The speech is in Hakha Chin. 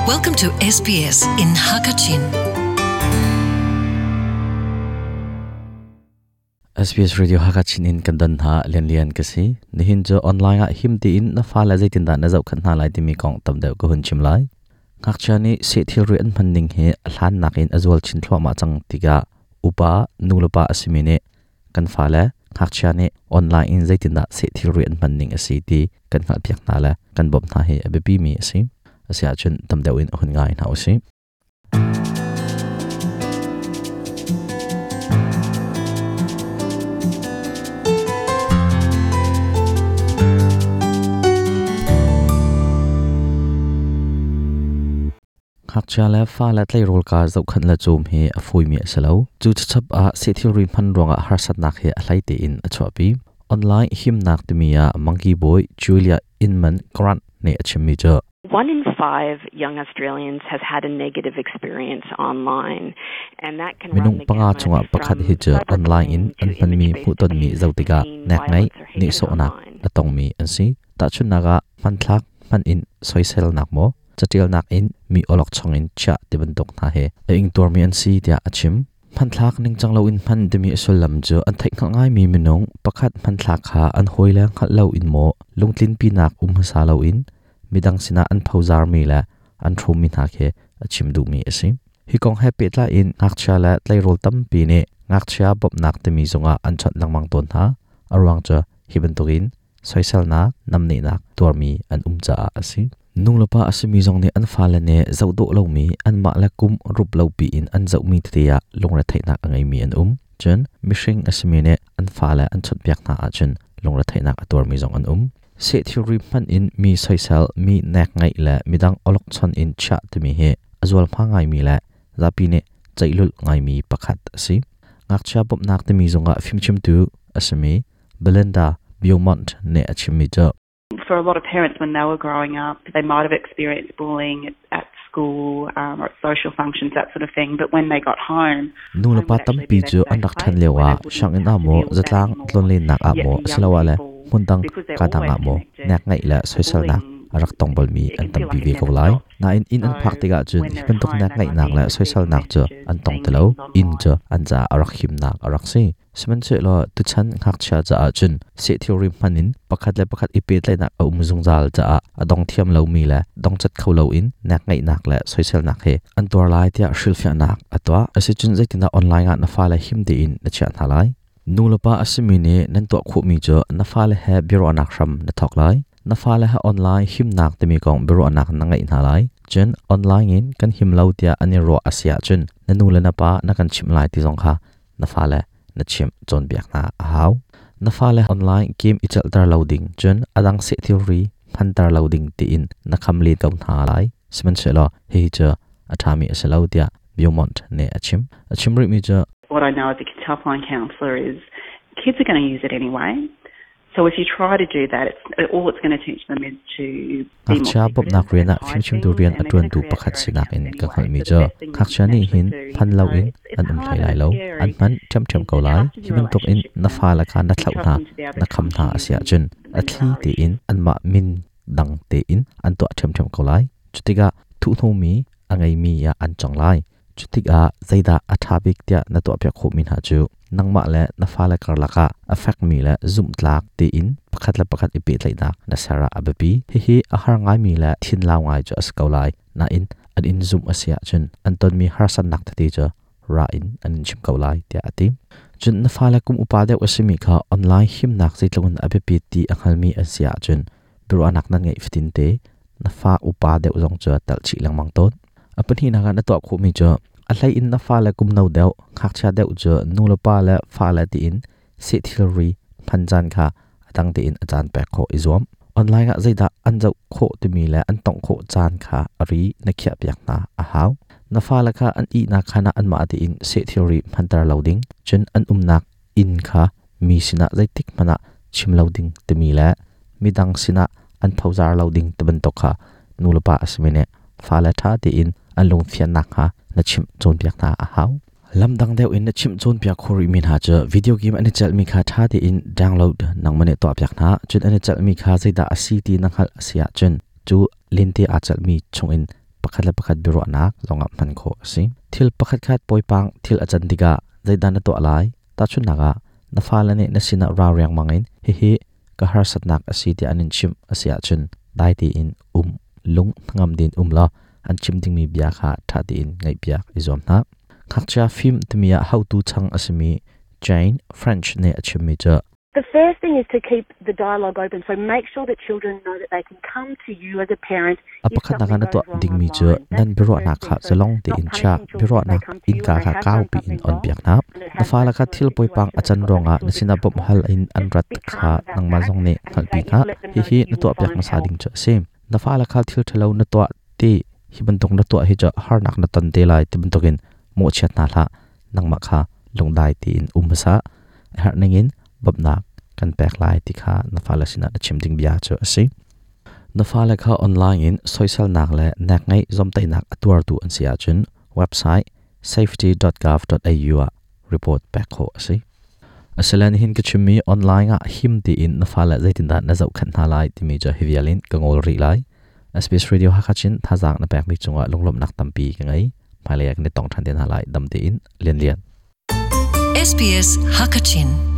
Welcome to SBS in Hakachin. SBS Radio Hakachin in kan don hna lianlian ka si. Nihin cu online ah him tiin na fale zeitindah na zohkhanh hna lai timi kong tam deuh ka hun chim lai. Ngakchia nih seh thilri an hman ning hi a hlan nakin a zual chin thluahmah cang tikah upa nulepa a simi nih kan fale ngakchia nih online in zeitindah seh thilri an hman ning a si ti kan hngalhpiak hna le kan bawmh hna hi a biapimi a si. Asiahcun tam deuh in hun ngai hna usih. Ngakchia le fale tleirawl ka zohkhenh le cawm hi a fawimi a si lo. Cu chachap ah seh thilri hman ruangah harsatnak hi a hlei tein a chuahpi. Online himnak timi ah Mangki bawi Julia Inman Grant nih a chimmi cu One in five young Australians has had a negative experience online, and that can run Minung the panga gamut chungah pakhat from hi cu online in cyberbullying an to hmanmi image-based hmuhtonmi abuse zoh tikah and teen nek ngeih, violence or hatred nihsawhnak online. a tongmi an si. Tahchunhnak ah hmanthlak hman in soiselnak maw, catialnak in mi awlokchong in chiah ti bantuk hna hi a ingtuarmi an si tiah a chim. Hmanthlak ningcang loin hman timi a sullam cu an theihhngalh ngaimi minung pakhat hmanthlak kha an hawile hngalh loin maw lungtlinpinak um hmasa loin midang sinah an phozarmi le an hrawmmi hna khi a chim duhmi a si. Hi kong he pehtlai in ngakchia le tleirawl tampi nih ngakchia bawmhnak timi zungah an chawnh lengmang tawn hna. A ruang cu hi bantukin soiselnak, namnehnak tuarmi an um caah a si. Nulepa a simi zong nih an fale nih zoh dawh lomi anmah le kum rup lo piin an zohmi tete ah lungretheihnak a ngeimi an um. Cun mihring a simi nih an fale an chawnhpiak hna ahcun lungretheihnak a tuarmi zong an um. Seh thilri hmanh in mi soisel, mi nek ngeih le midang awlokchon in chiah timi hi a zualhma ngaimi le zapi nih ceih lulh ngaimi pakhat a si. Ngakchia bawmhnak timi zongah fimchimtu a simi Belinda Beaumont nih a chimmi cu For a lot of parents, when they were growing up, they might have experienced bullying at school or at social functions, that sort of thing. But when they got home, Nulepa tampi cu an rak ṭhan lioah sianginn ah maw, zatlang tlonlennak ah maw asiloah le hmundang kadang ah maw nek ngeih le soiselnak a rak tong balmi an tampi ve ko lai. Nain inn an phak tikah cun hi bantuk nek ngeihnak le soiselnak cu an tong ti lo. Inn cu an caah a rak himnak a rak si. Sihmanhsehlaw tuchan ngakchia caah cun seh thilri hman in pakhat le pakhat i pehtlaihnak a um zungzal caah a dong thiam lomi le dongcat kho loin nek ngeihnak le soiselnak he an tuar lai tiah hrilhfiahnak a tuah. Asicun zeitindah online ah na fale him tein na chiah hna lai? Nulepa a simi nih nan tuah khawhmi cu na fale he biaruahnak hram na thawk lai. Na fale he online himnak timi kong biaruahnak na ngeih hna lai. Cun online in kan him lo tiah an i ruah a si ahcun na nu le na pa na kan chimh lai ti zong kha na fale na chimh cawnpiak hna a hau. Na fale online game i celhter lo ding cun a dang seh thilri hmanter lo ding tiin na kham len ko hna lai. Sihmanhsehlaw hihi cu a ṭhami a si lo tiah Beaumont nih a chim. A chim rihmi cu What I know as a kids helpline counsellor is kids are going to use it anyway. So if you try to do that, it's, all it's going to teach them is to be more Ngakchia bawmhnak secretive rian and ah hide fimchimtu things, rian a and they're going to ṭuantu create pakhat their own sinak accounts in ka anyway. hngalhmi So cu the best thing that you ngakchia can nih actually hin do, an as um hard lo and in as an scary, um hlei lai is lo. to An hman ṭhiamṭhiam trust ko lai. your Hi bantukin relationship na with them fale kha na and thlauh trust hna, them to be able na to kham come hna to a you si ahcun a when there thli are tein issues. anmah min dang tein an tuah ṭhiamṭhiam ko lai. Cutikah thuhnomi a ngeimi ah an cang lai. Cutikah zeidah a ṭha bik tiah na tuahpiak khawhmi hna cu nangmah le na fale karlak ah a fekmi le zumhtlak tein pakhat le pakhat i pehtlaihnak na ser ah a biapi. Hihi a har ngaimi le thinlau ngai cu a si ko lai. Nain an in zumh a si ahcun an tonmi harsatnak tete cu ra in an in chimh ko lai tiah a ti. Cun na fale kum upa deuh a simi kha online himnak zeitluk in a biapit ti a hngalmi an si ahcun biaruahnak nan ngeih fatin te na fa upa deuh zong cu telh chih lengmang tawn. A pahnihnak ah na tuah khawhmi cu a hlei in na fale kum no deuh, ngakchia deuh cu nu le pa le fale tiin seh thilri hman caan kha a dang tein a caan pek khawh i zuam. Online ah zeidah an zoh khawh timi le an tongh khawh caan kha a ri na khiahpiak hna a hau. Na fale kha an ihnak khaan ah anmah tein seh thilri hmanter lo ding, cun an umnak inn kha mi sinah zeitik hmanh ah chim lo ding timi le midang sinah an phozar lo ding ti bantuk kha nulepa a simi nih fale ṭha tein an lungfian nakhnga na chimh cawnpiak hna a hau. Lamdang deuh in na chimh cawnpiak khawh rihmi hna cu video game an i celhmi kha ṭha tein download nangmah nih tuahpiak hna. Cun an i celhmi kha zeidah a si ti na hngalh a si ahcun cu lente aa celhmi chungin Pakhat le pakhat biaruahnak zongah hman khawh a si. Thil pakhatkhat poipang thil a can tikah zeidah na tuah lai? Tahchunhnak ah, na fale nih na sinah ra riangmang in hihi ka harsatnak a si tiah an in chimh a si ahcun dai tein um, lung hnangam tein um law an chim dingmi bia kha ṭha tein ngaihpiak i zuam hna. Ngakchia fim timi ah haotu chang a simi Jane French nih a chimmi cu The first thing is to keep the dialogue open. So make sure that children know that they can come to you as a parent A pakhatnak ah na tuah dingmi cu nan biaruahnak kha zalong tein chia. Biaruahnak innka kha kaupi in onpiak hna. Na fale kha thil poipang a can ruangah na sinah bawmh hal in an rat kha nangmah zong nih hngalhpi hna. Hihi na tuahpiak hmasa ding cu a si. Na fale kha thil ṭhalo na tuah ti hi bantuk na tuah hi cu harnak na ton te lai ti bantukin mawhchiat hna hlah. Nangmah kha lungdai tein um hmasa. A herh ningin bawmhnak kan pek lai ti kha na fale sinah na chim ding bia cu a si. Na fale kha online in soiselnak le nekngeih zawmtaihnak a tuartu an si ahcun website safety.gov.au ah report pek khawh a si. Asile nihin ka chimmi online ah him tiin na fale zeitindah na zohkhenh hna lai timi cu hi vial in ka ngol rih lai. SBS Radio Hakha Chin thazaang na pekmi cungah lunglawmhnak tampi ka ngei. Hmailei ah kan i tong ṭhan te hna lai. Dam tein Lian Lian. SBS Hakachin.